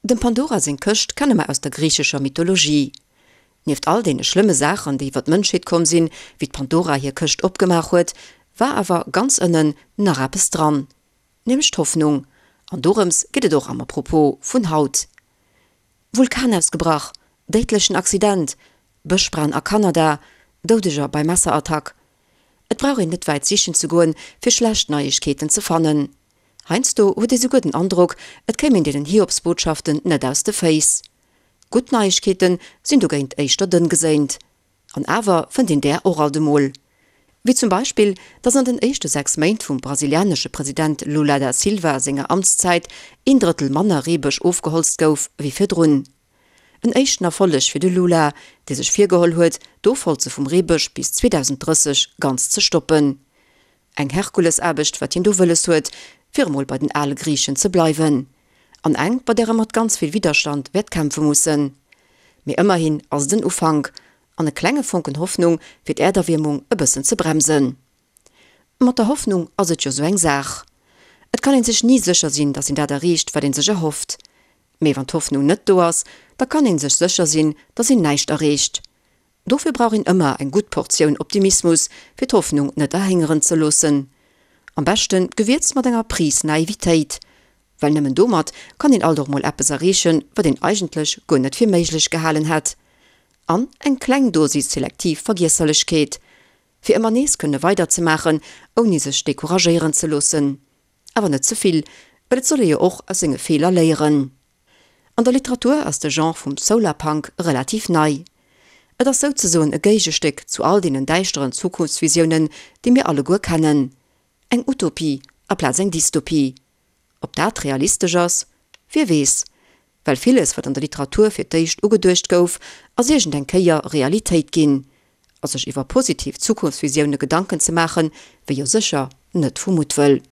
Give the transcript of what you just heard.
Dem Pandora seng Këscht kenne mer aus der griichescher Mythologie. Nieft all deene schlëmme Saachen, déi iwwer d'Mënschheet komm sinn, wéi d'Pandora hir Këscht opgemaach huet, war awer ganz ënnen nach eppes dran, nämlech d'Hoffnung. An dorëms geet et och am Apropos vun haut. Vulkan ausgebrach, déidlechen Accident, Bëschbränn a Kanada, Doudeger bei Messerattack. Et brauch een net wäit sichen ze goen, fir schlecht Neiegkeeten ze fannen. Heiansdo huet ee souguer den Androck, et kéim een deenen Hiobsbotschaften net aus de Féiss. Gutt Neiegkeete sinn dogéint éischter dënn geséint. An awer fënnt een där och alt emol. Wéi zum Beispill, datt an den éischte 6 Méint vum brasilianesche President Lula da Silva senger Amtszäit een Drëttel manner Reebësch ofgeholzt gouf wéi virdrun. En éischten Erfolleg fir de Lula, dee sech virgeholl huet, d'Ofholze vum Reebësch bis 2030 ganz ze stoppen. Eng Herkulesaarbecht, wat hien do wëlles huet, fir emol bei den ale Griichen ze bleiwen. An eng, bei där e mat ganz vill Widderstand wäert kämpfe mussen. Mee ëmmerhin ass et en Ufank, an e klenge Fonken Hoffnung, fir d'Äerderwiermung e bëssen ze bremsen. Mat der Hoffnung ass et jo sou eng Saach. Et kann een sech ni sécher sinn, datt een dat erreecht, wat een sech erhofft. Mee wann d'Hoffnung net do ass, da kann een sech sécher sinn, datt een näischt erreecht. Dofir brauch een ëmmer eng gutt Portioun Optimismus, fir d'Hoffnung net erhéngeren ze loossen. Am beschte gewierzt mat enger Pris Naivitéit. Well nëmmen domat kann een alt och mol eppes erreechen, wat een eigentlech guer net fir méiglech gehalen hätt. An eng kleng Dosis selektiv Vergiesserlechkeet. Fir ëmmer nees kënne weiderzemaachen, ouni sech decouragéieren ze loossen. Awer net ze vill, well et soll ee jo och aus senge Feeler léieren. An der Literatur ass de Genre vum Solarpunk relativ nei. Et ass souzesoen e Géigestéck zu all deenen däischteren Zukunftsvisiounen, déi mir alleguer kennen. Eng Utopie aplaz eng Dystopie. Ob dat realistesch ass? Wie weess. Well villes, wat an der Literatur fir d'éischt ugeduecht gouf, ass iergend eng Kéier Realitéit ginn. A sech iwwer positiv Zukunftsvisioune Gedanken ze maachen, wier jo sécher net vu Muttwëll.